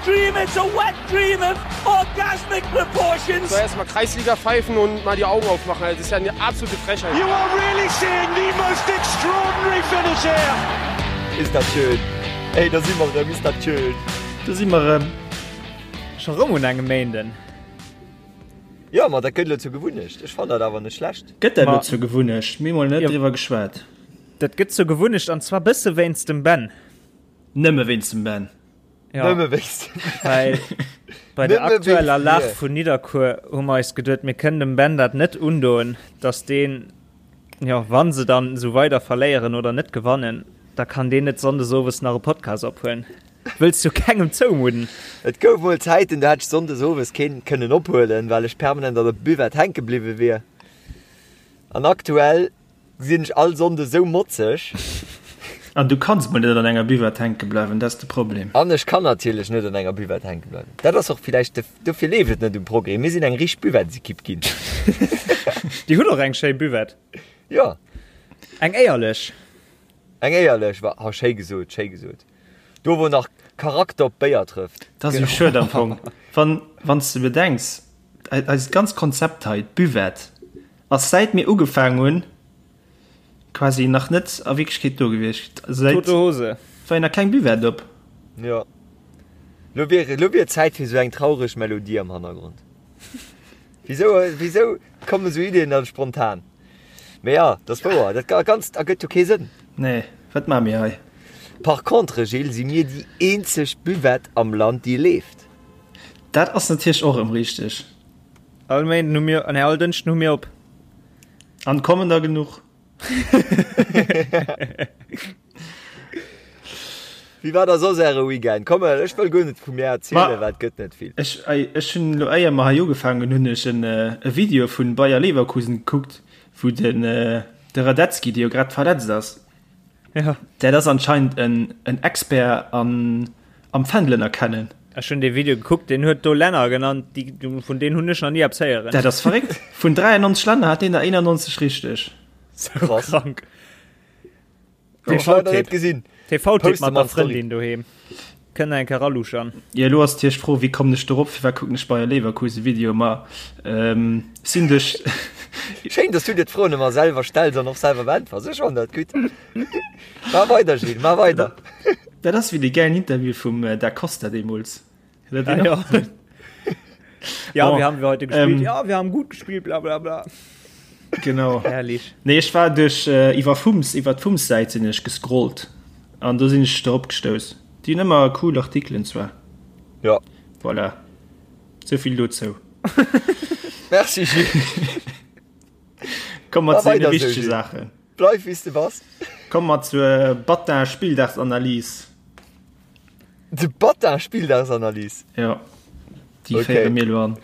dream, it's a wet dream of orgasmic proportions. So erstmal Kreisliga pfeifen und mal die Augen aufmachen. Das ist ja eine absolute Frechheit. You are really seeing the most extraordinary finish here. Is dat schön. Ey, da si mer erëm, is dat schön. Do si mer erëm. Scho rëm un engem Méinden. Jo, ma dat gëtt elo zur Gewunnecht. Ech fannen dat awer net schlecht. Gëtt dat elo zur Gewunnecht? Mir hu mol net driwwer geschwat. Dat gëtt zur Gewunnecht an zwar bësse wéinst dem Ben. Nëmme wéinst dem Ben. Ja. Nëmme wéinst dem Ben. Well bei der aktueller Lag vun Nidderkuer hu mer eis geduet, mir kënnen dem Ben dat net undoen, datt deen, jo, wa se dann esou weider verléieren oder net gewannen, da kann deen net sonndes owes nach e Podcast ophuelen. Wëlls du kengem zoumudden? Et gouf mol Zäiten, do hätt ech sonndes owes keen kënnen ophuelen, well ech permanent an der Buvette hänke bliwwe wier. An aktuell sinn ech all Sonnde sou motzeg. An du kanns mol net an enger Buvette hänke bleiwen, dat ass de Problem. An ech kann natierlech net an enger Buvette hänke bleiwen. Dat ass och villäicht de, dofir leeft et net um Progrès. Mir sinn eng richteg Buvettesekipp ginn. Dir hutt och eng schéi Buvette. Jo. Eng éierlech. Eng éierlech, wa, ha schéi gesot, schéi gesot. Do wou nach Charakter op Béier trëfft. Dat ass jo schued am Fong, wann wann s de bedenks, eist ganzt Konzept hei, d'Buvette, ass säit mir ugefaangen hunn quasi nach net a Wierklechkeet do gewiescht. Säit Tote Hose. war jo nach keng Buvette op. Jo. Lo wier, lo wier Zäit fir sou eng traureg Melodie am Hannergrond. Wisou, wisou kommen esou Iddien dann spontan? Mee ja, dat ass wouer, dat Ganzt ergëtt jo kee Sënn. Nee, wat maache mir hei? Par contre, Gilles, si mir déi eenzeg Buvette am Land, déi leeft. Dat ass natierlech och erëm richteg. All Méinden hu mir, nee, all Dënschden hu mir op. An kommen der genuch? Wéi war da soss äre Weekend? Komm, ech wëll guer net vu mir erzielen, well et gëtt net vill. Ech, ech hunn elo éier mer hei ugefaangen hunn, ech en e Video vun Bayer Leverkusen gekuckt, wou den de Radetzky, dee jo grad verletzt ass, Ja. dat ass anscheinend en en Expert an am Fändelen erkennen. Ech hunn dee Video gekuckt, deen huet do Länner genannt, déi, vun deenen hunn ech nach ni eppes héieren. Dat ass verréckt. Vun 93 Länner hat deen der 91 richteg. Sou krank. TV-Tipp gesinn. TV-Tipp mat der Frëndin doheem. Kënnt eng Kéier raluschern. Jo, elo ass natierlech d'Fro, wéi kommen ech dorop? Firwat kucken ech Bayer Leverkusen Video? Ma ähm, sinn duerch. Schéin, dass du dir d'Froen ëmmer selwer stells an och selwer beäntwers. Ech fannen dat gutt. Maach weider, Gilles, maach weider. Dat ass wéi dee gäilen Interview vum Da Costa deemools. Ah, ja. ja, bon, wie haben wir heute gespielt? Ähm, ja, wir haben gut gespielt, bla bla bla. Genau. Herrlich. Nee, ich war durch äh, iwwer Fums, iwwer d'Fums-Säit sinn ech gescrollt an do sinn ech drop gestouss. Déi hunn ëmmer cool Artikelen zwar. Ja. Voilà. Souvill dozou. Merci Gilles. Komm mat zu de wichtege Saachen. Bleif wéi s de bass. Komm mat zur Batin Spilldagsanalyse. De Batin Spilldagsanalyse? Ja. Déi okay. féiere mir elo an.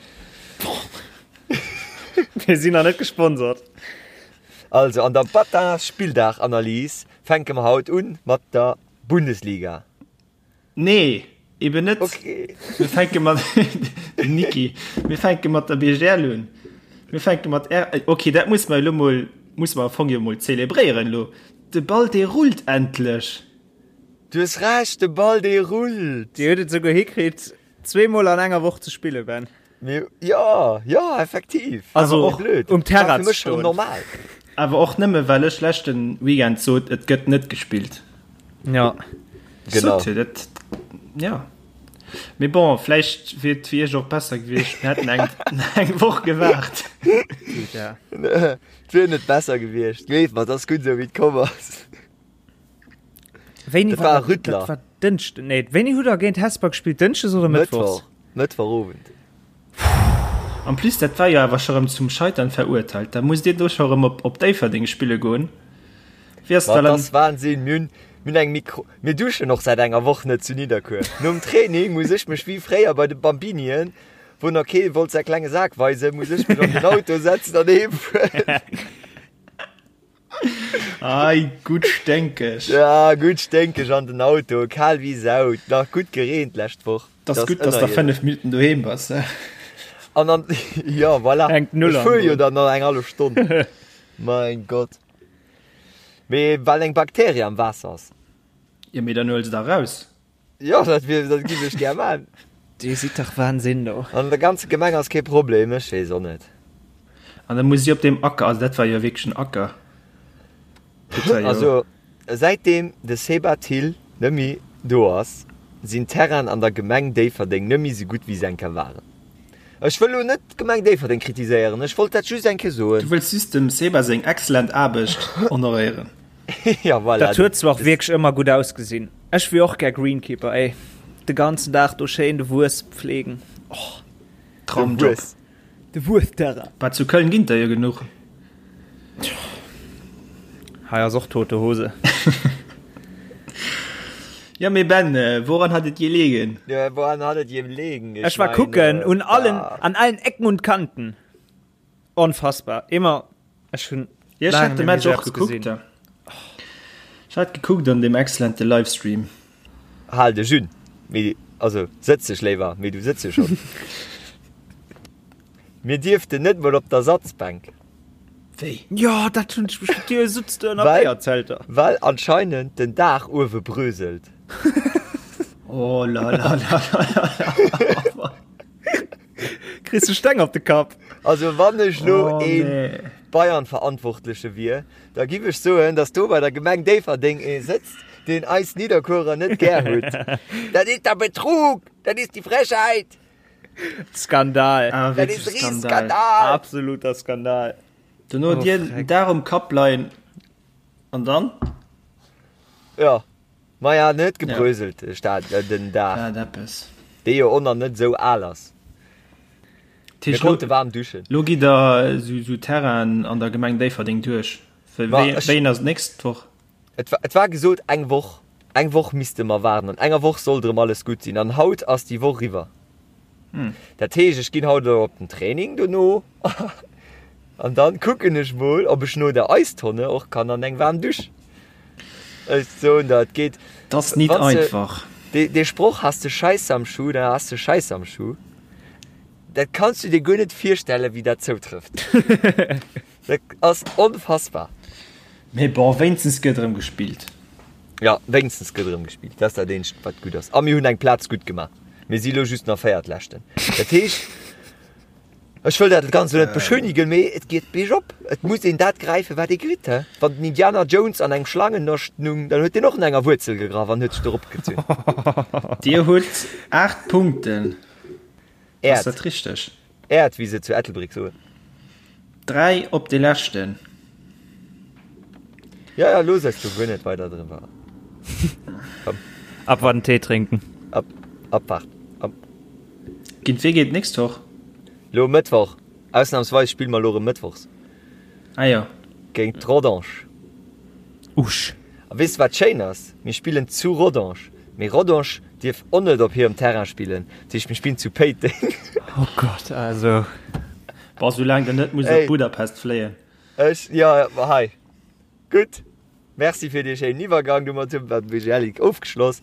Mir sinn nach net gesponsert. Also an der Batin Spilldagsanalyse fänke mer haut un mat der Bundesliga. Nee, eben net. Okay. Mir fänke mat den Niki. Mir fänke mat der BGL un. Mir fänke mat R. Okay, dat muss mer elo mol muss mer am Fong jo mol zelebréieren elo. De Ball dee rullt endlech. Du hues Recht, de Ball dee rullt. Dir hutt et souguer hikritt, zweemol an enger Woch ze spillen, Ben. Mir, jo, jo, effektiv. Also och blöd. um Terrain ze stoen. Normal. Awer och nëmme well ech leschten Weekend sot, et gëtt net gespillt. Ja. Genau. Sot, dat, ja. Mee bon, vläicht wier et fir iech och besser gewiescht, mir hätten eng, eng Woch gewaart. Ja. Et wier net besser gewiescht. Gleef mer, et ass gutt esou wéi et komm ass. Wéini Dat war e Rüttler. Dat war Dënschden. Nee, wéini hutt der géint Hesper gespillt? Dënschdes oder Mëttwochs? Mëttwoch. Mëttwochowend. En plus, dat war jo awer scho rëm zum Scheitern verurteilt. Da musst Dir do scho rëm op, op Déifferdeng spille goen. Wéi ass Ma dat et dann? ass Wahnsinn. Mir hunn, mir hunn eng Mikro, mir duschen och säit enger Woch net zu Nidderkuer. Nom Training muss ech mech wéi fréier bei de Bambinien, wou nach kee wollt säi klenge Sak weisen, muss ech mech an den Auto setzen an heem fueren. Ei, gutt sténkeg. Ja, gutt sténkeg an den Auto, kal wéi Sau, nach gutt gereent d'lescht Woch. Dat ass gutt, dass der 5 Minutten doheem bass. An dann, ja, voilà. Hänkt null Ech an fuer jo drun. dann nach eng hallef Stonn. Mein Gott. Mee well eng Bakterie am Waasser ass. Jo, mee dann huel se da raus. Jo, dat wier, dat giff ech gär man. Dir sidd dach Wahnsinn do. An der ganzer Gemeng ass kee Problem, ech weess och net. An da muss si op deem Acker, also dat war jo wierklech en Acker. Dat war jo. Also säitdeem de Seba Thill nëmmi do ass, sinn d'Terrainen an der Gemeng Déifferdeng nëmmi sou gutt wéi se eng Kéier waren. Ech wëll elo net d'Gemeng Déifferdeng kritiséieren, ech wollt dat just eng Kéier soen. Du wëlls just dem Seba seng excellent Aarbecht honoréieren. Ja, voilà. Dat huet zwar och wierklech ëmmer gutt ausgesinn. Ech wier och gär Greenkeeper, ey. De ganzen Dag do schéin de Wues pflegen. Och. Traumjob. De Wuesterrain. Bah, zu Köln ginn der jo genuch. Hei ass och tote Hose. Ja, mee Ben, woran hat et gelegen? Ja, woran hat et gelegen? Ech war kucken un allen, an allen Ecken und Kanten. Onfassbar. Immer, ech hunn Ja, ech hat de Match och gekuckt. Ech hat gekuckt an dem excellente Livestream. Hal dech un, mee also sëtz dech léiwer, mee du sëtz jo schonn. Mir dierften net mol op d'Ersatzbänk. Wéi? Jo, dat hunn ech mech Dir sutzt do ënner Béierzelter. Well anscheinend den Daach uewe bröselt. Oh la la la la la. Kriss de Steng op de Kapp. Also wann ech lo oh, een nee. Bayern-Verantwortleche wier, da giff ech soen, dass do bei der Gemeng Déifferdeng ee sëtzt, deen eis Nidderkuerer net gär huet. Dat is der Betrug! Dat is die Frechheit! Skandal. Ah, Dat is Skandal. Absoluter Skandal. Dono oh, dir Dag um Kapp leien an dann? Ja. Maja, en huet gebröselt, de Stad, den Daach. Dat eppes. Dee jo och nach net esou al ass. Mir konnte waarm duschen. Lo gitt der esou Terrainen an der Gemeng Déifferdeng duerch. Wéi ass d'nächst Woch? Et war gesot eng Woch. Eng Woch misste mer waarden. An enger Woch sollt erëm alles gutt sinn. An haut ass déi Woch eriwwer. Dat heescht, ech ginn haut elo op den Training dono an dann kucken ech mol, ob ech no der Eistonne och kann an eng waarm Dusch. Ech soen der, et geet. Dat ass nit einfach. Dee Sproch, Has de Scheiße am Schuh, dann has de Scheiße am Schuh, dat kanns du dir guer net virstellen, wéi dat zoutrëfft. Dat ass onfassbar. Mee bon, wéinstens gëtt erëm gespillt. Jo, wéinstens gëtt erëm gespillt. Dat ass dat eenzegt, wat gutt ass. A mir hunn eng Plaz gutt gemaach. Mir si lo just nach Véiertleschten. Dat heescht, ech wëll dat Ganzt elo net beschönigen, mee et geet biergop. Et muss een dat gräifen, wat ee kritt. He? Wann den Indiana Jones an engem Schlangennascht nung, dann huet deen och no enger Wuerzel gegraff an huet sech do eropgezunn. Dir hutt 8 Punkten. Ass dat richteg? Äert, wéi se zu Ettelbréck soen. 3 op de leschten. Ja, ja, looss eis do guer net weider driwwer. Komm. Abwarten, Tee trinken. Ab, abwarten. Ab. Géint wee geet d'nächst Woch? Lo Mëttwoch. Ausnahmsweis spille mer lo erëm mëttwochs. Ah jo. Géint Rodange. Usch. A weess de wat schéin ass? Mir spillen zu Rodange, mee Rodange dierf och net op hirem Terrain spillen, dat heescht mir spillen zu Péiteng. Oh Gott, also. Boah, soulaang der net musst op Budapest fléien. Ech, jo, ma hei. Gutt, merci fir dee schéinen Iwwergang. Domat hu mer d'BGL Ligue ofgeschloss.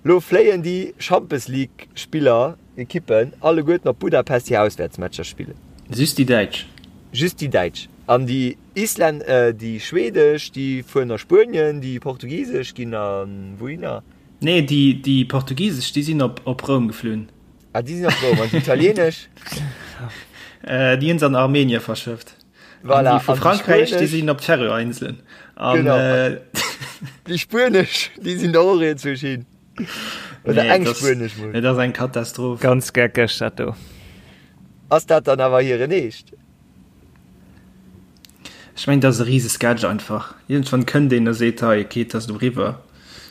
Lo fléien déi Champes League Spiller, Ekippen alleguerten op Budapest hir Auswäertsmatcher spillen. Just déi Däitsch? Just déi Däitsch. An déi Islän, déi Schwedesch, déi fueren a Spuenien, déi Portugisesch ginn a wouhinner? Nee, déi, déi Portugisesch, déi sinn op, op Roum geflunn. Ah, déi sinn op Roum. An déi Italienesch? Déi hunn se an Armenien verschëfft. Voilà. An déi vu Frankräich, déi sinn op d'Färöer-Inselen. An, genau. Déi Spuenesch, déi sinn da och iergendwousch hin. Oder nee, eng Spuenesch mol. Et ass eng Katastroph. Ganz geckeg, dat do. Ass dat dann awer hiren Eescht? Ech mengen, dat ass e rise Sketch einfach. Iergendwann kënnt een a seet, hei, okay, et ass elo eriwwer.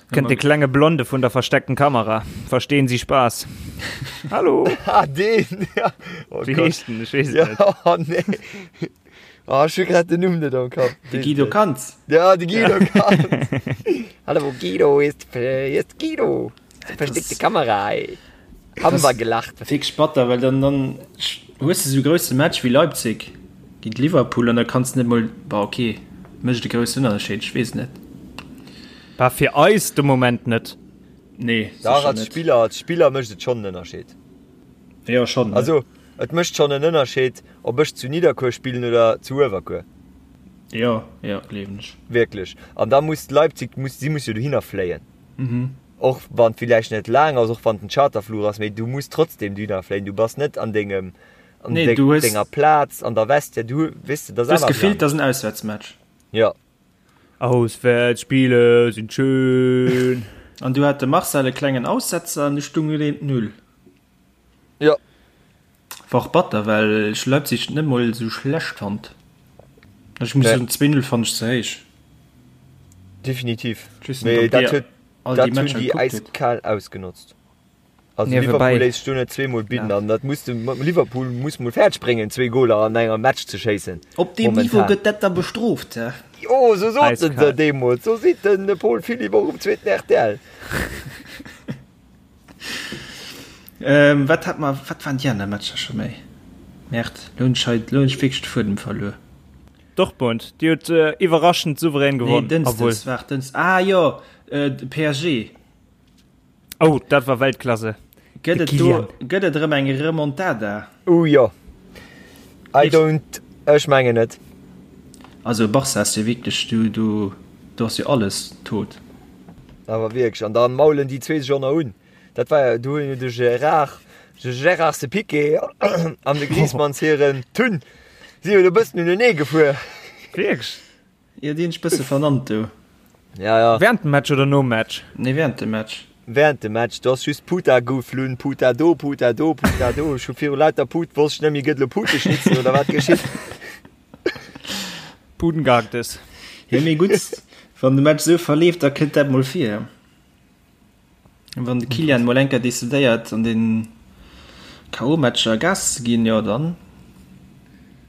Kënnt de klenge Blonde vun der versteckten Kamera. Verstehen Sie Spaß? Hallo? Ah, deen, ja. Oh Wéi heescht den? Ech weess et net. Ja, oh nee. Oh, ech hu grad den Numm net am Kapp. De Guido Cantz. Ja, de Guido Cantz. Hallo Guido, hier ist, hier ist Guido. Versteckte Kamera, ey. Haben wir gelacht. Wierklech batter, well dann, dann hues de sou e grousse Match wéi Leipzig géint Liverpool an da kanns de net mol, bah okay, mécht e groussen Ënnerscheed, ech weess net. Bah fir eis de Moment net. Nee, Dach, als Spiller, als Spiller mécht et schonn en Ënnerscheed. Jo, schonn. Also, et mécht schonn en Ënnerscheed, ob ech zu Nidderkuer spillen oder zu Uewerkuer. Jo, jo, gleewen ech. Wierklech. An da muss Leipzig, muss, si muss jo dohinner fléien. Mhm. Och wann et villäicht net laang ass, och wann et en Charterfluch ass, mee du muss trotzdem dohinner fléien. Du bass net an dengem, an Nee, du hues- denger Plaz an der Vestiaire. Du, weess de, dat Du ass hues awer gefillt, anescht. dat ass en Auswäertsmatch. Jo. Auswärtsspiele sind schön. An du hat de Marcel e klengen Aussetzer an du stung et eent Null. Jo. War och batter, well ech Leipzig net mol esou schlecht fand. Ech muss Nee. soen, 2-0 fand ech ze héich. Definitiv. Ich weess net, Mee ob dat dir huet, all déi dat hunn Matcher déi gekuckt hutt. äiskal ausgenotzt. Also Niewebäi. Liverpool léisst sech do net zweemol bidden an dat muss de Liverpool muss mol fäerdeg bréngen zwee Goler an engem Match ze schéissen. Op deem Niveau Momentan. gëtt dat da bestrooft, hä? Jo, sou soten se Eiskal. deemools. Sou seet den Paul Philipp och um zweeten rtl. Ähm, wat hat mer, wat waren déi aner Matcher scho méi? Merde, lo hunn ech hei, lo hunn ech wierklech de Fuedem verluer. Dortmund, déi huet iwwerraschend souverän Nee, gewonnen. Obwuel. Dënschdes, waart, Dënschdes, ah jo, äh, de PSG. Oh, dat war Weltklasse. Gëtt De et do, Kylian. gëtt et erëm eng Remontada? Ouh jo. I don't, ech mengen net. Also Barca ass jo wierklech, do, do, do ass jo alles tot. Awer wierklech, an da maulen déi zwee sech och nach un. Dat war jo, do hunn jo de Gérard, de Gérard se Piqué an de Griezmanns hiren Tun si jo do e bëssen unenee gefuer. Wierklech? Jo, déi hunn sech bësse vernannt do. Ja, ja. Während dem Match oder nom Match? Nee, während dem Match. Während dem Match, do ass just Puta geflunn, Puta do, Puta do, Puta do. Ech hu viru lauter Put, wosst ech net méi, gëtt elo Puteschnitzel oder wat geschitt? Putengehacktes. Jo, mee gutt, wann de Match esou verleeft, da kënnt dat mol vir. Wann de Kylian mol eng Kéier decidéiert an den KO-Matcher Gas ze ginn, jo dann.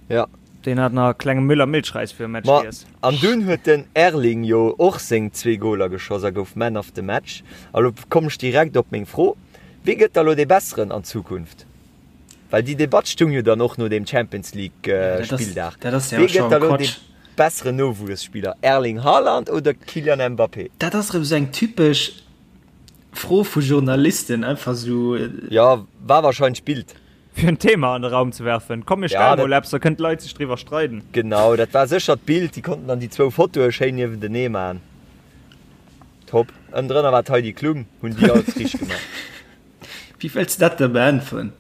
Ja. Deen hat nach e klenge Müller-Milchreis virum Match Ma giess. an dunn huet den Erling jo och seng zwee Goler geschoss a gouf Man of the Match. A lo komm ech direkt op meng Fro, Wie gëtt da lo dee Besseren an Zukunft? Well déi Debatt stung jo dann och no deem Champions League Spilldag. Dat ass jo Wie gëtt scho da lo dee Quatsch. besseren Nowuesspiller, Erling Haaland oder Kylian Mbappé? Dat ass erëm esou eng typesch Fro vu Journalisten, einfach esou. Jo, war wahrscheinlech Bild. Fir en Thema an de Raum ze werfen. Komm mir Ja, stelle dat- mol eppes, da kënnen d'Leit sech driwwer streiden. Genau, dat war sécher d'Bild. Déi konnten dann déi zwou Fotoe schéin niewentenee man. Top. Ënnendrënner war d'Heidi Klum. Hunn déi alles richteg gemaach. Wéi wëlls de dat da beäntweren?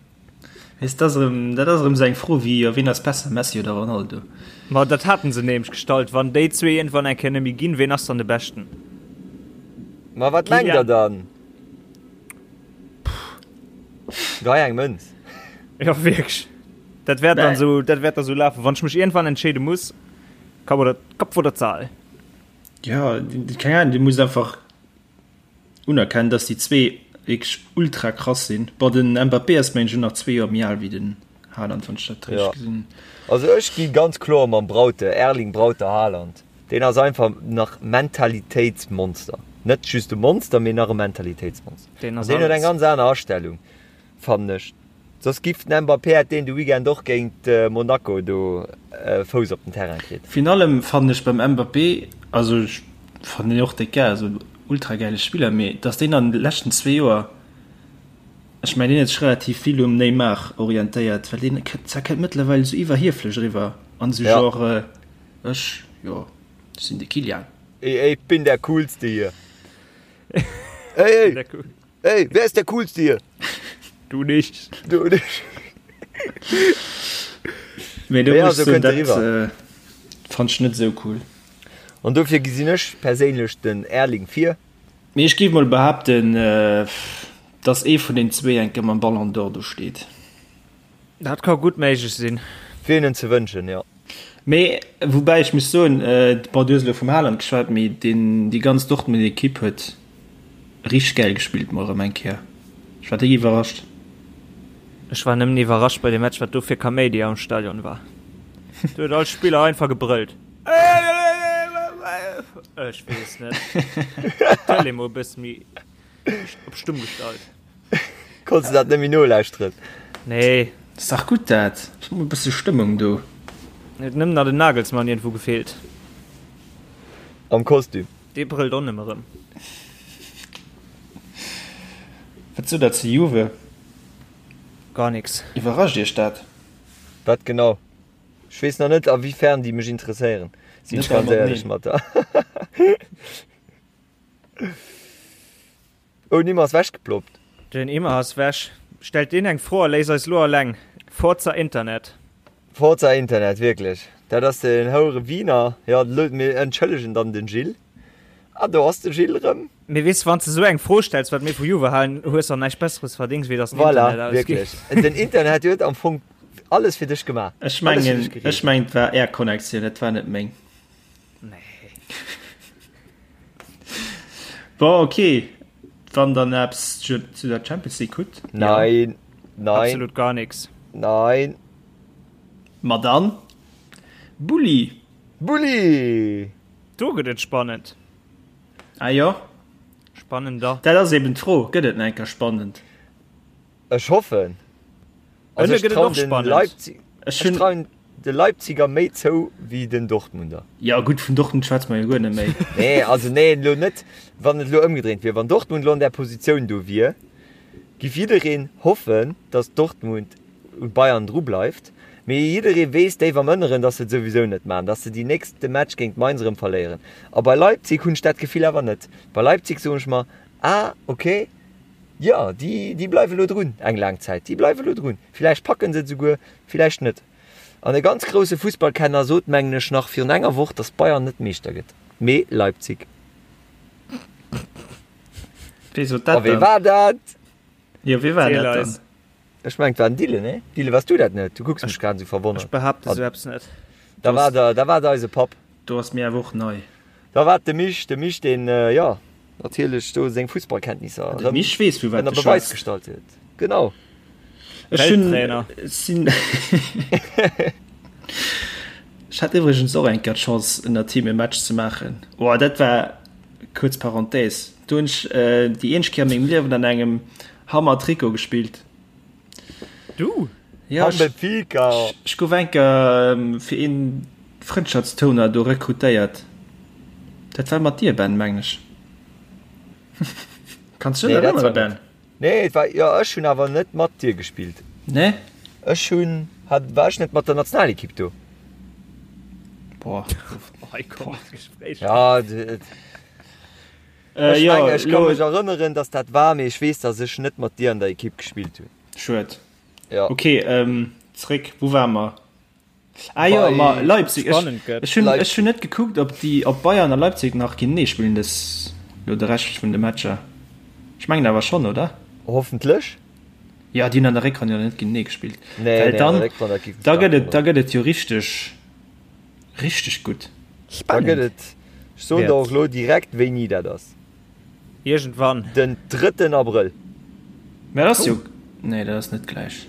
Weess, dat ass erëm, dat ass erëm esou eng Fro wéi, jo, wien ass besser, Messi oder Ronaldo? Ma dat haten se nämlech gestallt, wann déi zwee iergendwann eng Kéier net méi ginn, ween ass dann de Beschten? Ma wat mengt der dann? Gei eng Mënz. Jo, wierklech. Dat wäert dann esou, dat wäert da sou lafen, wann ech mech iergendwann entscheede muss, Kapp oder, Kopf oder Zahl? Jo, keng Ahnung, du muss einfach Unerkennen, dass déi zwee wierklech ultra krass sinn. Bon, den Mbappé ass mengen ech och nach zwee Joer méi al wéi den Haaland, wann ech dat richteg gesinn hunn. Also ech gi ganz kloer mam Braute, Erling Brauter Haaland. Deen ass einfach nach Mentalitéitsmonster. Net just e Monster, mee nach e Mentalitéitsmonster. Deen ass Deen huet eng alles. ganz aner Astellung. Fannen ech. Soss giff den Mbappé hätt deen de Weekend och géint Monaco do e Fouss op den Terrain kritt. Virun allem fannen ech beim Mbappé, also ech fannen deen och déck gäil, also ultra gäile Spiller, mee dass deen an de leschten zwee Joer, ech mengen deen huet sech relativ vill um Neymar orientéiert, well deen kënnt kënnt mëttlerweil esou iwwerhieflech eriwwer an esou genre ech, jo ech sinn de Kylian. Ey, ich bin der coolste hier. Ey, ey. Ey, wer ist der coolste hier? Du nicht. Du nicht. Mee do Ja, muss so ech soen, kënnt dat eriwwer. äh, fand ech net esou cool. An dofir gesinn ech perséinlech den Erling vir. Mee ech géif mol behaapten, äh, dass ee vun den zwee eng Kéier mam Ballon d'Or do steet. Dat ka gutt méiglech sinn. Wier hinnen ze wënschen, jo. Mee woubäi ech muss soen, bon du hues elo vum Haaland geschwat, mee deen déi ganz Dortmund Equipe huet richteg gäil gespillt mol erëm eng Kéier. Ech war déck iwwerrascht. Ech war nëmmen iwwerrascht bei dem Match wat do fir Kaméidi am Stadion war. Do huet all Spiller einfach gebrëllt. Ech weess net. Tëlee mol e bësse méi op stumm gestallt. Konns de dat net méi nolauschteren? Nee. Ass dach gutt dat. Ass mol e bësse Stëmmung do. Huet nëmmen nach den Nagelsmann iergendwou gefeelt. Am Kostüm. Dee brëllt och nëmme rëm. Wat sot der zu Juve? Gar nix. Iwwerrascht iech dat? Wat genau? Ech weess nach net a wéi fern déi mech interesséieren, sinn ech ganz éierlech mat der. Oh, den Imma ass wechgeploppt. Den Imma ass wech. Stellt deen eng Fro a léisst eis lo alleng. Forza Internet. Forza Internet, wierklech. Dat ass den houere Wiener. Jo, mir entschëllegen dann den Gilles. Ah, do ass de Gilles erëm. Mee weess, wann s de esou eng Fro stells, wat mir vu Juve halen, hues de näischt Besseres verdéngs, wéi dass den Voilà, Internet ausgeet. wierklech. Den Internet huet am Fong alles fir dech gemaach. Ech mengen, ech mengen, et war Är Connectioun, et war net meng. Nee. Bon, okay. Wann der nach eppes zu zu der Champions League hutt. Nein, nein. Absolut gar nix. Nein. Ma dann, Bulli! Bulli! Do gëtt et spannend. Ah jo. Spannender. Dat ass eben d'Fro, gëtt et nach eng Kéier spannend? Ech hoffen. Also ech trauen den Leipzig, ech trauen de Leipziger méi zou wéi den Dortmunder. Jo gutt, vun Dortmund schwätze mer jo guer net méi. Nee, also nee, elo net, wann et elo ëmgedréint wier. Wann Dortmund elo an där Positioun do wier, giff jiddereen hoffen, datt Dortmund un Bayern dru bleift, mee jidderee weess déif am Ënneren, datt se et souwisou net maachen, datt se déi nächste Match géint Mainz erëm verléieren. A bei Leipzig hunn ech dat Gefill awer net. Bei Leipzig soen ech mer, ah ok, jo, déi, déi bleiwe lo drun eng laang Zäit, déi bleiwe lo drun, villäicht packen se et esouguer, villäicht net. An e ganz grousse Fussballkenner sot, mengen ech, nach virun enger Woch, datt Bayern net Meeschter gëtt, mee Leipzig. Wee sot dat dann? A wee war dat? Jo, wee war dat dann? Ech mengen, et war den Dylan, nee? Dylan, waars du dat net? Du kucks mech grad esou verwonnert. Ech behaapte sou eppes net. Da war der, da war et eise Papp. Do ass mir awer och nei. Da war et de Mich, de Mich, deen, jo, natierlech do seng Fussballkenntnisser De Mich weess, vu wat ënner de Beweis schwätzt. gestallt huet. Genau. Ech hunn, Welttrainer. sinn, Ech hat iwwregens och eng Kéier d'Chance, ënner him e Match ze maachen. Oh, dat war, kuerz Parenthèse, do hunn ech déi eenzeg Kéier a mengem Liewen an engem Hammer Trikot gespillt. Du? Ja, ech, ech gouf enker fir een Frëndschaftstourner do rekrutéiert. Dat war mat dir, Ben, mengen ech. Kanns du dech erënnere, Ben? Nee, et war, jo, ech hunn awer net mat dir gespillt. Nee? Ech hunn, hat, war ech net mat der Nationalekipp do? Boah. Hei kommt d'Gespréich. Ja, et. Ech mengen, ech ka mech erënneren, datt dat war, mee ech weess, datt ech net mat dir an der Ekipp gespillt hunn. Schued. Ja. Ok, zréck, wou ware mer? Ah jo, ma Leipzig. Spannend gëtt. Ech hunn, ech hunn net gekuckt, ob déi, ob Bayern a Leipzig nach géintenee spillen dës, lo de Rescht vun de Matcher. Ech mengen awer schonn, oder? Hoffentlech. Jo, déi hunn an der Réckronn jo net géintenee gespillt. Nee, Well nee, an dann, der Réckronn, dat géif mech da stark gëtt et, da wonneren. gëtt et jo richteg, richteg gutt. Da gëtt et, ech soen der Wäert. och elo direkt wéini dat ass. Iergendwann. Den drëtten Abrëll. Mä dat ass jo, nee dat ass net gläich.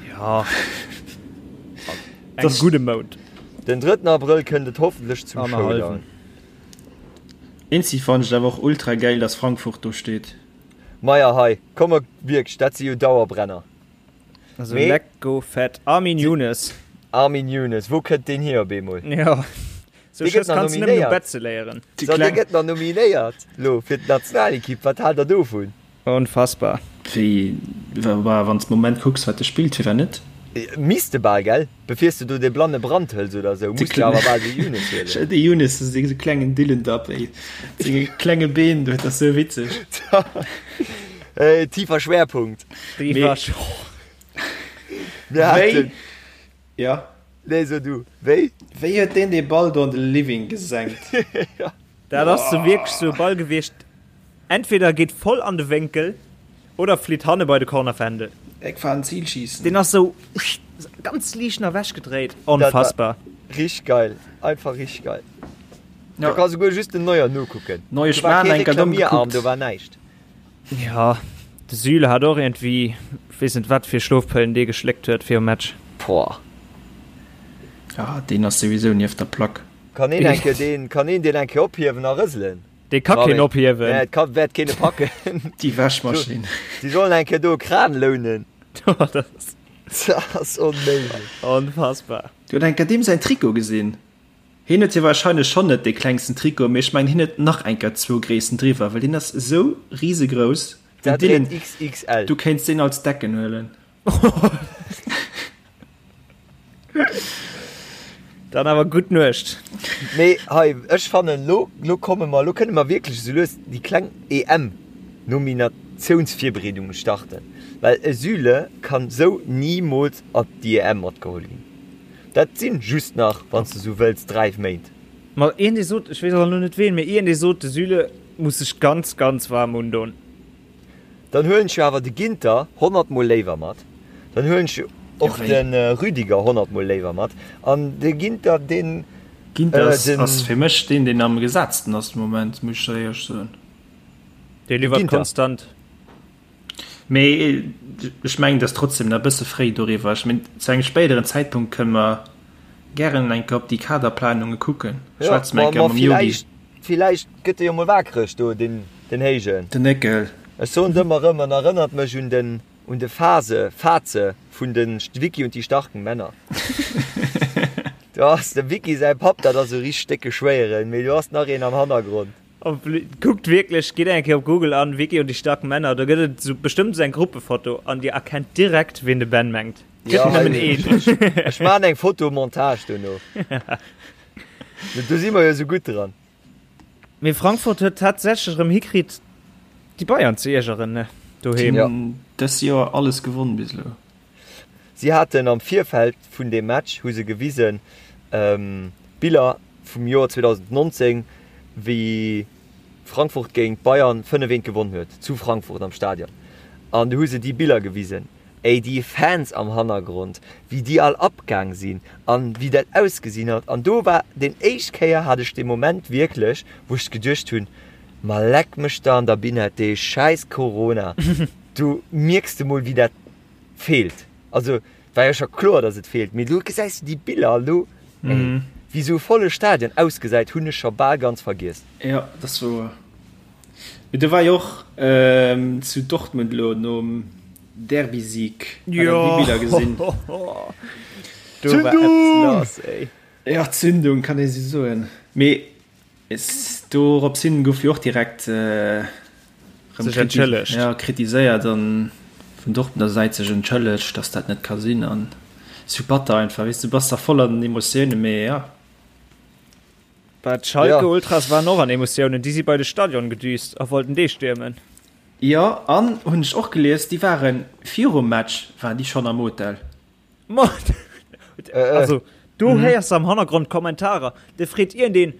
Jo, engem gudde Mount. Den drëtten Abrëll kënnt et hoffentlech zum Showdown. Eenzeg fannen ech et awer och ultra gäil, dass Frankfurt do steet. Maja hei, komm mer wierklech, dat si jo Dauerbrenner. Also Mee, lecko fett. Armin Younes. Armin Younes, wou kënnt deen hier op eemol? Jo, sou Dee gëtt Schëss nach kanns de nëmmen um nominéiert. Bett ze léieren. So, dee gëtt nach nominéiert lo fir d'Nationalekipp. Wat haalt der dovun? Onfassbar. Wéi, wa wann s de Moment kucks wat e spillt, firwat net? Misst de bal, gell? Befirs de do dee blanne Brand hëls oder sou, muss de awer bal de Younes huelen. De Younes ass esou klengen Dillendapp, ey. Mat senge klenge Been do, dat ass sou witzeg. Hey, tiefer Schwerpunkt. Tiefer Mir haten. Ja. Nee, so du. Wéi? Wéi huet deen dee Ball do an de Living gesenkt? Ja. Dat ass sou wierklech sou e Ball gewiescht, entweder geet voll an de Wénkel oder flitt hanne bei de Cornerfändel. Eck fahren, Zielschießen. Deen ass sou ganz liicht nach ewech gedréit. Onfassbar. Richteg geil. Einfach richteg geil. Do ka souguer just den Neuer nokucken. Neue Do war Schwan kee enker domm Reklamierarm, gekuckt. do war näischt. Jo, de Süle hat och iergendwéi, weess net wat fir Schlofpëllen dee geschléckt huet virum Match. Boah. Ja, deen ass souwisou nieft der Plack. Kann een eng Kéier deen, kann een deen eng Kéier ophiewen a rëselen? Dee ka keen ophiewen. Nee, et ka, wäert keen e packen. Déi Wäschmaschinn. Si sollen eng Kéier do e Kran lounen. Dat ass. Dat ass onméiglech. Onfassbar. Du huet eng Kéier deem säin Trikot gesinn. Hien huet jo wahrscheinlech schonn net dee klengsten Trikot, mee ech mengen hien huet nach eng Kéier zwou Gréissten driwwer, well deen ass esou risegrouss. Den Dat Dylan, dréit XXL. du kéints deen als Decken huelen. Dann awer gutt Nuecht. Mee hei, ech fannen, lo, lo komme mer, lo kënne mer wierklech esou lues déi kleng EM. Nominatiounsvirbereedunge starten, well e Süle kann sou nimools op déi EM matgeholl ginn. Dat sinn just nach, wann s de sou wëlls, 3 Méint. Ma een dee sot, ech weess awer elo net ween, mee een dee sot, de Süle muss sech ganz, ganz waarm undon. Dann huelen ech jo awer de Ginter 100 mol léiwer mat, dann huelen ech och de Rüdiger 100 mol léiwer mat an de Ginter deen. Ginter ass fir mech deen deen am gesetzten ass de Moment, muss ech der éierlech soen. Dee liwwert konstant. Mee ech mengen et ass trotzdem nach e bësse fréi doriwwer. Ech mengen zu engem spéideren Zäitpunkt kënne mer gären eng Kéier op déi Kaderplanunge kucken. Schwätze mer eng Kéier mam Yogi. Villäicht gëtt e jo mol waakreg do, den Héijen. Den Néckel. Ech soen et ëmmer erëm, en erënnert mech un den un de Phase, Faze vun de Wickie und die starken Männer. Do ass dem Wickie säi Papp, dat ass e richteg décke Schwéieren, mee do ass nach een am Hannergrond. Kuckt wierklech, gitt eng Kéier op Google an, Wickie und die starken Männer, do gëtt et sou bestëmmt sou eng Gruppefoto an dir erkennt direkt ween de Ben mengt. Gëtt nëmmen een. Ech maan eng Fotomontage dono. Do si mer jo sou gutt dran. Mee Frankfurt huet tatsächlech erëm hikritt déi Bayern ze iergeren, ne? Doheem. Ja. Dës Joer alles gewonn bis elo. Si haten am Virfeld vun deem Match hu se gewisen Biller vum Joer 2019, wéi Frankfurt géint Bayern 5, 1 gewonn huet zu Frankfurt am Stadion. An du hu se déi Biller gewisen. Ey, déi Fans am Hannergrond, wéi déi all abgaang sinn an wéi dat ausgesinn hat. An do war den éischt Kéier hat ech dee Moment wierklech, wou ech geduecht hunn, ma leck mech der an der Binette, dee schäiss Corona, do mierks de mol wéi dat feelt. Also war jo scho kloer, dass et feelt, mee elo gesäis de déi Biller an elo, ey, wéi sou e volle Stadion ausgesäit, hunn ech scho bal ganz vergiess. Jo, dat ass wouer. Mee do war jo och zu Dortmund elo nom Derby-Sieg, hat der déi Biller gesinn? Do war eppes lass, ey. Jo, Zündung kann ee sou soen. Mee dorops hin gouf jo och direkt rëm entschëllegt. Ja, kritiséiert an vun Dortmunder Säit sech entschëllegt, datt dat net ka sinn an sou batter einfach, weess du, bass da voll an den Emotiounen, mee ja. Bah, d'Schalke Ultras waren och an Emotiounen, déi si bei de Stadion gedüst a wollten dee stiermen. Jo, an hunn ech och gelies, déi waren virum Match waren déi schonn am Hotel. Ma also do héiers de am Hannergrond Kommentarer, de freet iergendeen,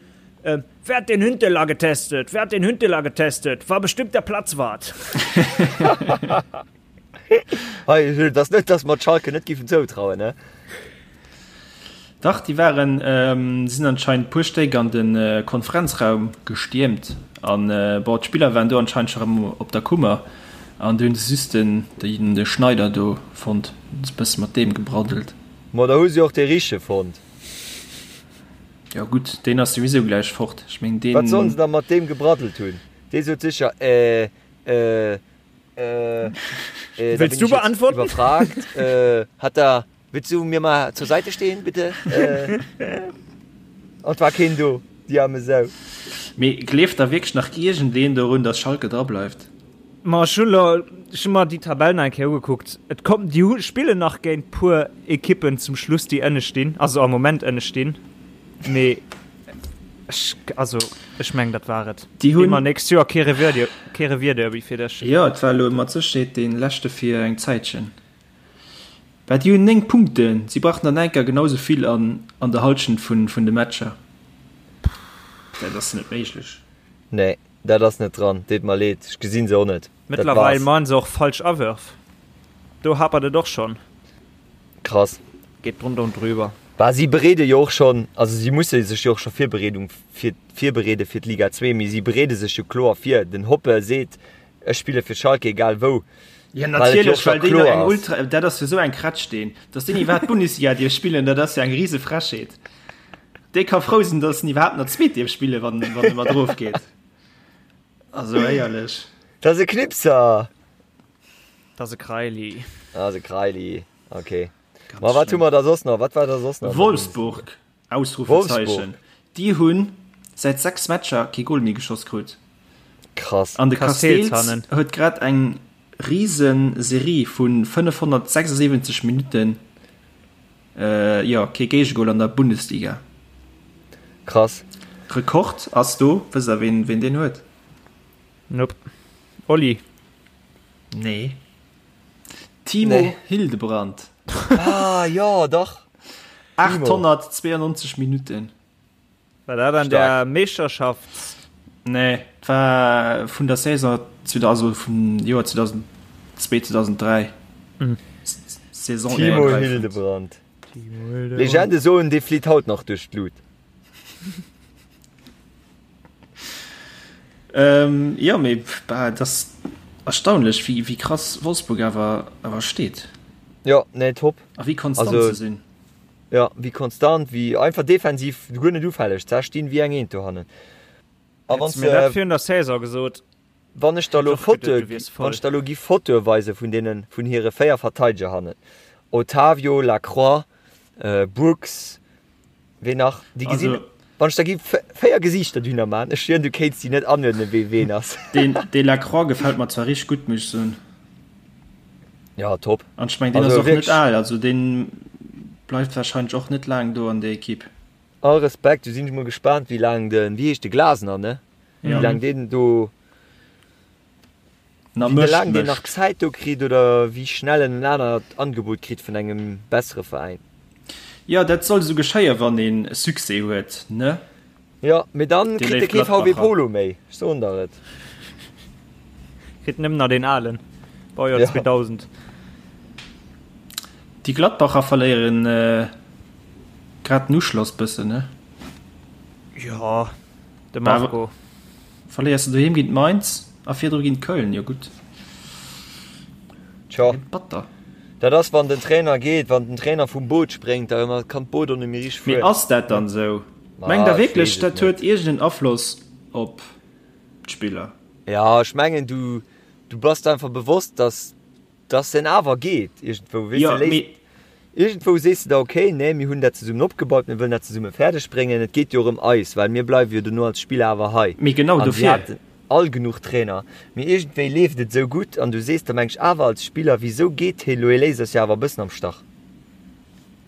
Wer hat den Huntelaar getestet? Wer hat den Huntelaar getestet? War bestimmt der Platzwart. Hei, et ass net, dass mer d'Schalke net giffen zoutrauen, ne? Dach, déi waren, sinn anscheinend puer Stéck an de Konferenzraum gestiermt an bon, d'Spiller waren do anscheinend scho rëm op der Kummer an du hunn se just den de Schneider do fonnt, hunn se bësse mat deem gebraddelt. Ma da hu se och dee Richtege fonnt. Jo gutt, deen ass souwisou gläich fort, ech meng deen. Wat sollen se da mat deem gebraddelt hunn? Dee sot sécher, äh, äh, äh, äh, da Wëlls bin du ich jetzt beantworten? iwwerfragt, äh, hat da. Willst du mir mal zur Seite stehen, bitte? Äh, und war keen do, déi arme Sau. Mee gleeft da wierklech nach iergendeen dorun, datt Schalke dra bleift? Ma ech hunn elo, ech hunn mer déi Tabell nach eng Kéier ugekuckt. Et kommt, déi hu spillen nach géint puer Ekippen zum Schluss, déi ënne stinn, also am Moment ënne stinn. Mee ech, also ech mengen, dat war et. Déi hunn. Immer nächst Joer kee Revier, kee Revierderby fir dech. Jo, et war elo mat Sécherheet dee leschte fir eng Zäitchen. Well déi hunn 9 Punkten, si brauchten dann enker genau sou vill an an der Halschent vun vun de Matcher. Dat ass net méiglech. Nee, dat ass net dran, deet mer leed, ech gesinn se och net. Dat Mëttlerweil war's. man se och falsch Awërf, do hapert et och schonn. Krass. Geet drunter und drüber. Bah, si bereede jo och schonn, also si musse sech jo och scho Virbereedung fir virbereede fir d'Liga 2, mee si bereede sech jo kloer vir. Den Hoppe seet, Ech spille fir Schalke, egal wou. Ja natierlech, well déi eng Ultra, dat ass jo sou eng Kretsch deen, datt deen iwwerhaapt d'Bundesliga dierf spillen, dat ass jo eng rise Frechheet. Dee ka frou sinn, datt en iwwerhaapt nach d'Zweet dierf spillen, wann wann e mat erof geet. Also éierlech. Dat ass e Knipser! Dat ass e Kraili. Dat ass e Kraili, okay. Ma wat hu mer da soss nach? Wat war da soss nach? Wolfsburg! Ausrufezeichen. Déi hunn säit 6 Matcher kee Gol méi geschoss krut. Krass. An de Casteels huet grad eng rise Serie vu 576 Minutten, jo, kee Géigegol an der Bundesliga. Krass. Rekord ass do, wësst der ween deen huet? Nope. Oli. Nee. Timo nee. Hildebrand. Ah, jo, dach. 892 Minuten. War dat an der Meeschterschafts? Nee, et war vun der Saison, also vum Joer 2002, 2003. Mhm. Saison Timo Hildebrand. Timo Hildebrand. Legende soen, dee flitt haut nach duerch d'Lut. Ähm, jo, mee bah, et ass erstaunlech, wéi, wéi krass Wolfsburg awer, awer steet. Jo, nee, top. A wéi konstant also, se sinn. Jo, wéi konstant, wéi einfach defensiv guer net ufälleg. Ze stinn wéi eng Eent dohannen. A wann mir dat virun der Saison gesot. Wann ech der lo Fotoe, wann ech der lo gi Fotoe weise vun deenen, vun hire 4 Verteideger hannen, Otavio, Lacroix, Brooks, Ween nach? Déi gesinn, also, wann ech der gi 4 Gesiichter dunner man, ech schwieren du kéints déi net anuerdnen wee ween ass. Deen Delacroix gefält mer zwar richteg gutt, muss ech soen. Ja, top. An ech meng deen ass och net al, also deen bleift wahrscheinlech och net laang do an der Equipe. All Respekt, du sinn ech mol gespaant wéi laang den, wéi heescht de Glasner, ne? Wéi laang deen do. Na, Wéi mécht, laang deen nach mécht. Zäit do kritt oder wéi schnell en en anert Angebot kritt vun engem bessere Veräin. Jo, dat soll esou geschéien, wann een Succès huet, ne? Jo, mee dann Déi kritt e léif kee VW Gladbacher. Polo méi, ech soen der et. Kritt nëmmen nach deen alen, Baujoer Ja. 2000. Déi Gladbacher verléieren grad den Uschloss bëssen, ne? Jo, de Marco. Verléiers de doheem géint Mainz a virdru géint Köln, jo gutt. Tjo. Batter. Dat ass wann den Trainer geet, wann den Trainer vum Boot spréngt, da kann d'Boot och net méi richteg Mee fueren. ass dat dann esou? Mengt der ech wierklech weess et dat net. huet iergend en Afloss op d'Spiller? Ja, ech mengen du du bass der einfach bewosst, dass Dass en awer geet iergendwou, weess de, léisst, iergendwou sees de der, okay, nee, mir hunn dat zesummen opgebaut, mir wëllen dat zesumme fäerdeg bréngen, et geet jo erëm eis, well mir bleiwe jo dono als Spiller awer hei. Mee genau An si dofir. haten all genuch Trainer, mee iergendwéi leeft et esou gutt an du sees der, meng ech, awer als Spiller, wisou geet hie lo, hie léisst eis jo awer e bëssen am Stach.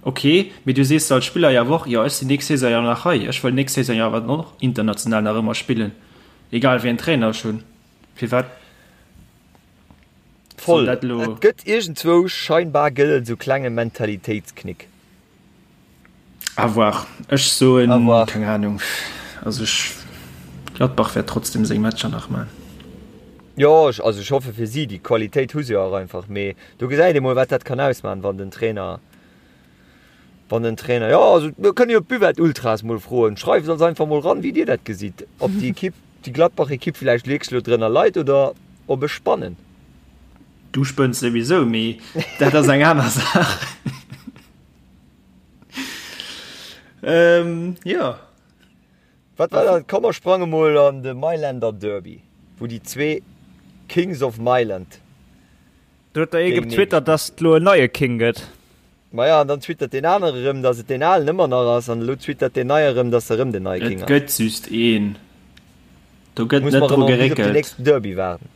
Ok, mee du sees der als Spiller jo awer och, jo, ech sinn nächst Saison jo nach hei, ech wëll nächst Saison jo awer dann och international nach ëmmer spillen, egal wéi en Trainer ech hunn. Firwat? Voll. Et gëtt iergendzwou scheinbar gëtt et esou klenge Mentalitéitsknick. À voir. Ech soen, keng Ahnung. Also ech, Gladbach wäert trotzdem seng Matcher nach man. Jo, ech, also ech hoffe fir si, déi Qualitéit hu se jo och einfach, mee do gesäit ee mol wat dat kann ausman, wann den Trainer, wann den Trainer, jo also mir kënne jo d'Buvette Ultras mol froen, schreift ons einfach mol ran wéi dir dat gesitt, ob déi Equipe, déi Gladbach Equipe villäicht wierklech elo drënner leit oder ob ech spannen. Du spënns souwisou, mee dat ass eng aner Saach. Ähm, jo. Wat war dat? Komm mer sprange mol an de Mailänder Derby, wou déi zwee Kings of Mailand. Do huet der ee getwittert, dass et lo en neie King gëtt. Maja, an dann twittert deen anere erëm, dass et deen alen ëmmer nach ass, an elo twittert deen neie erëm, dass erëm den neie King Et ass. gëtt just een. Do gëtt Muss net mer dru erëm bis op den geréckelt. nächsten Derby waarden.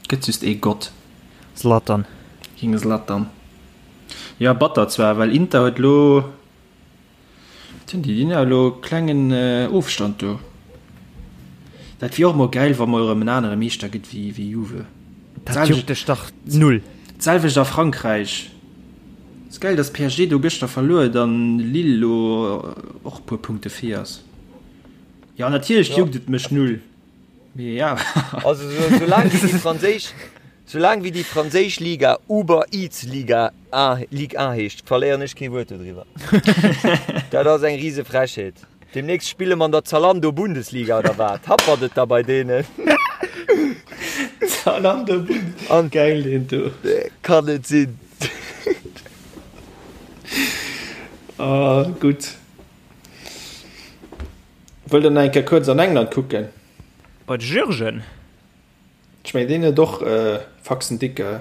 Gëtt just ee Gott. Zlatan. King Zlatan. Jo, batter zwar, well Inter huet elo. Wat hunn déi? Déi hunn jo elo klengen Ofstand do. Dat wier och mol gäil, wa mol erëm en anere Meeschter gëtt wéi wéi Juve. Dat juckt dech dach null. D'selwecht a Frankräich. Ass gäil, datt PSG do gëschter verluer huet an Lille elo och e puer Punkte vir ass. Jo, natierlech juckt et mech null. Mee ja. Also soulaang wéi déi franséisch, soulaang wéi déi franséisch Liga Uber Eats Liga A, Ligue 1 heescht, verléieren ech kee Wuert dodriwwer. Dat ass eng rise Frechheet. Demnächst spille mer an der Zalando Bundesliga oder wat? Happert et da bei deenen? Zalando Bundesliga. An Geil deen do. Kann net sinn. Ah, gutt. Wëllt der nach eng Kéier kuerz an England kucken? Bei de Jürgen? Ech mengen deen huet och Faxen dicke.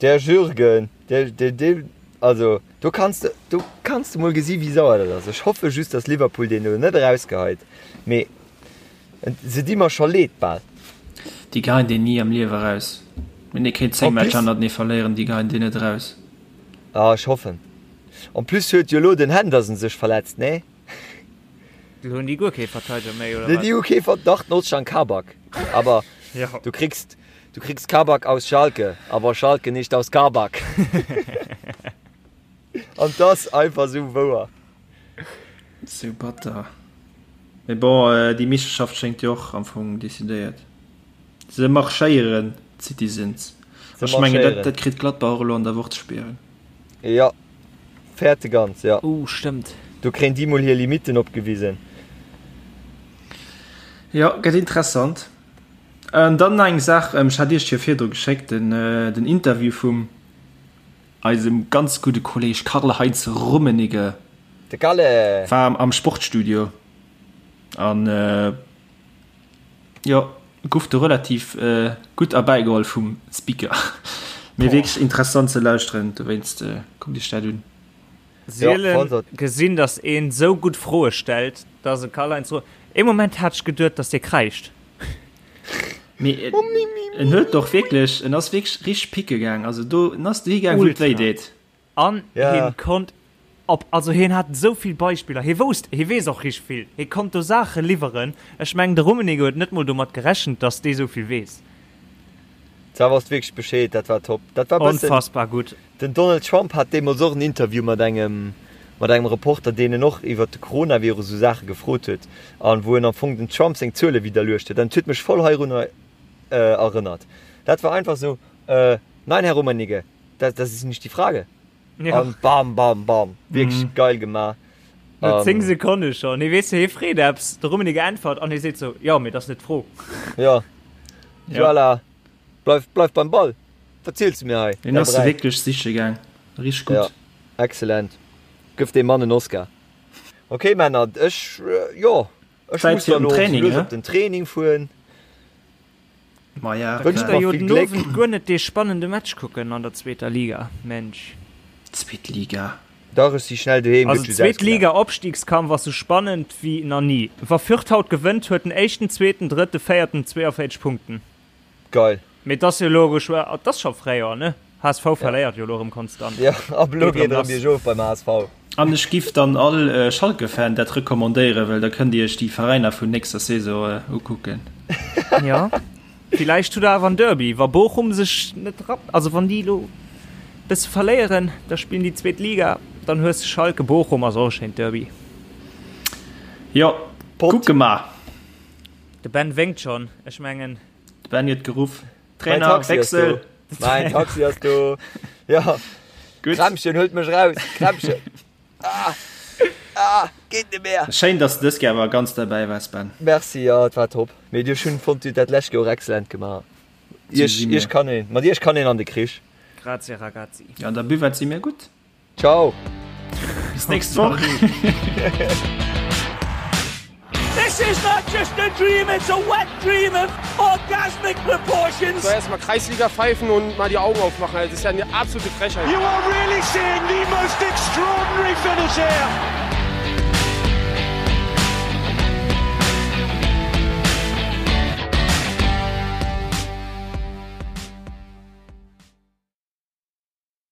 Der Jürgen, der, der, der, also do kanns de, do kanns de mol gesi wéi sauer dat ass. Ech hoffe just, datt Liverpool deen elo net erausgeheit, mee se di mer scho leed bal. Déi geheien deen ni am Liewe eraus. Wenn ee kéint 10 En plus. Matcher hannertenee verléieren, déi geheien deen net eraus. Ah, ech hoffen. En plus huet jo elo den Henderson sech verletzt, nee? Lo hunn déi guer kee Verteideger méi, oder wat? Déi hu kee Vert-, dach, den Ozcan Kabak. Aber Ja. du kriegst, du kriegst Kabak aus Schalke, aber Schalke nicht aus Kabak. An 't ass einfach sou wouer. Sou batter. Mee bon, déi Meeschterschaft schéngt jo och am Fong decidéiert. Se marschéieren, d'Citizens. Se Ech mengen, dat, marschéieren. dat kritt Gladbach och elo an der Woch ze spieren. Jo, fäerte ganz, jo. Uh, stëmmt. Do kréien déi mol hir Limitten opgewisen. Jo, gëtt interessant. An dann nach eng Saach, ech hat Iech jo virdru geschéckt, den, den Interview vum eisem ganz gudde Kolleg Karl-Heinz Rummenigge. De Kalle! War am Sportstudio an jo, guff do relativ gutt erbäigeholl vum Speaker. Mee wierklech interessant ze lauschteren, dowéinst kuckt iech dat un. Sielen gesinn, dass een sou gutt Froe stellt, dass e Karl-Heinz Ru. Ee Moment hat ech geduet, dass dee kräischt. Mee en huet och wierklech, en ass wierklech richteg picke gaang. Also do, en ass dohi gaang, wou et wéi deet. An hien konnt op, also hien hat esou vill Beispiller, hie wousst, hie weess och richteg vill, hie konnt do Saache liwweren. Ech mengen, de Rummenigge huet net mol domat gerechent, dass dee sou vill weess. Zwar wosst wierklech Bescheed, dat war top. Dat war bëssen. Onfassbar gutt. Den Donald Trump hat deemools och en Interview mat engem mat engem Reporter, deen en och iwwert de Coronavirus esou Saache gefrot huet an wou en am Fong den Trump seng Zuele widderluecht huet. An et huet mech voll heirunner erënnert. Dat war einfach esou, Nein, Herr Rummenigge, das, das ist nicht die Frage. Ja. An bam, bam, bam. Wierklech geil gemaach. No 10 Sekonne schonn. Hie weess, hie freet eppes, de Rummenigge äntwert an hie seet sou, Jo, mee dat ass net d'Fro. Ja. Voilà. Bleif, bleif beim Ball. Wat ziels du mir hei? Deen ass se wierklech siche gaang. Richteg gutt. Ja, excellent. Gëff deem Mann en Oscar. Ok Männer, ech, jo, ech Zäit muss fir dann den elo Training, lues he? op den Training fueren. Maja, Wënscht Kënnt der mer jo vill den Gléck. Owend guer net dee spannende Match kucken an der zweeter Liga, Mensch. Zweet Liga. Dach, ech si schnell doheem, Also gëtt just zweet ausgelacht. Liga Opstiegskampf ass sou spannend wéi na ni. Wa Fürth haut gewënnt, huet den éischten, zweeten, drëtte, véierten 42 Punkten. Geil. Mee et ass jo elo geschwë, et ass scho Fréijoer, ne? HSV verléiert jo elo erëm konstant. Jo, ab elo Geet geet erëm erëm lass. biergof beim HSV. An ech giff dann all Schalke-Fan dat recommandéieren, well da kënnt dir iech déi Veräiner vun nächster Saison ukucken. Jo, villäicht hutt der awer en Derby, wa Bochum sech net rappt, also wann déi elo bësse verléieren, da spillen déi zweet Liga, dann hues de Schalke, Bochum ass och e schéint Derby. Jo, Pot. kucke mer. De Ben wénkt schonn, ech mengen. De Ben huet geruff, Mein Trainer, Taxi ass do. Wechsel! Mein Taxi ass do. Ja. Gutt. Krämpchen, huelt mech raus. Krämpchen. Ah. Ah, geet net mehr. Schéin, dass de dës Kéier awer ganz derbäi waars, Ben. Merci, ja, et war top. Mee dir hunn fonnt, dir hutt dat lescht Joer och excellent gemaach. Iech, si mir. iech kann een, mat iech kann een an de Krich. Grazie ragazzi. Ja, an der Buvette si mir gutt. Ciao. Bis nächst Woch. This is not just a dream, it's a wet dream of orgasmic proportions. So erstmal Kreisliga pfeifen und mal die Augen aufmachen. Also, das ist ja eine absolute Frechheit. You are really seeing the most extraordinary finish here.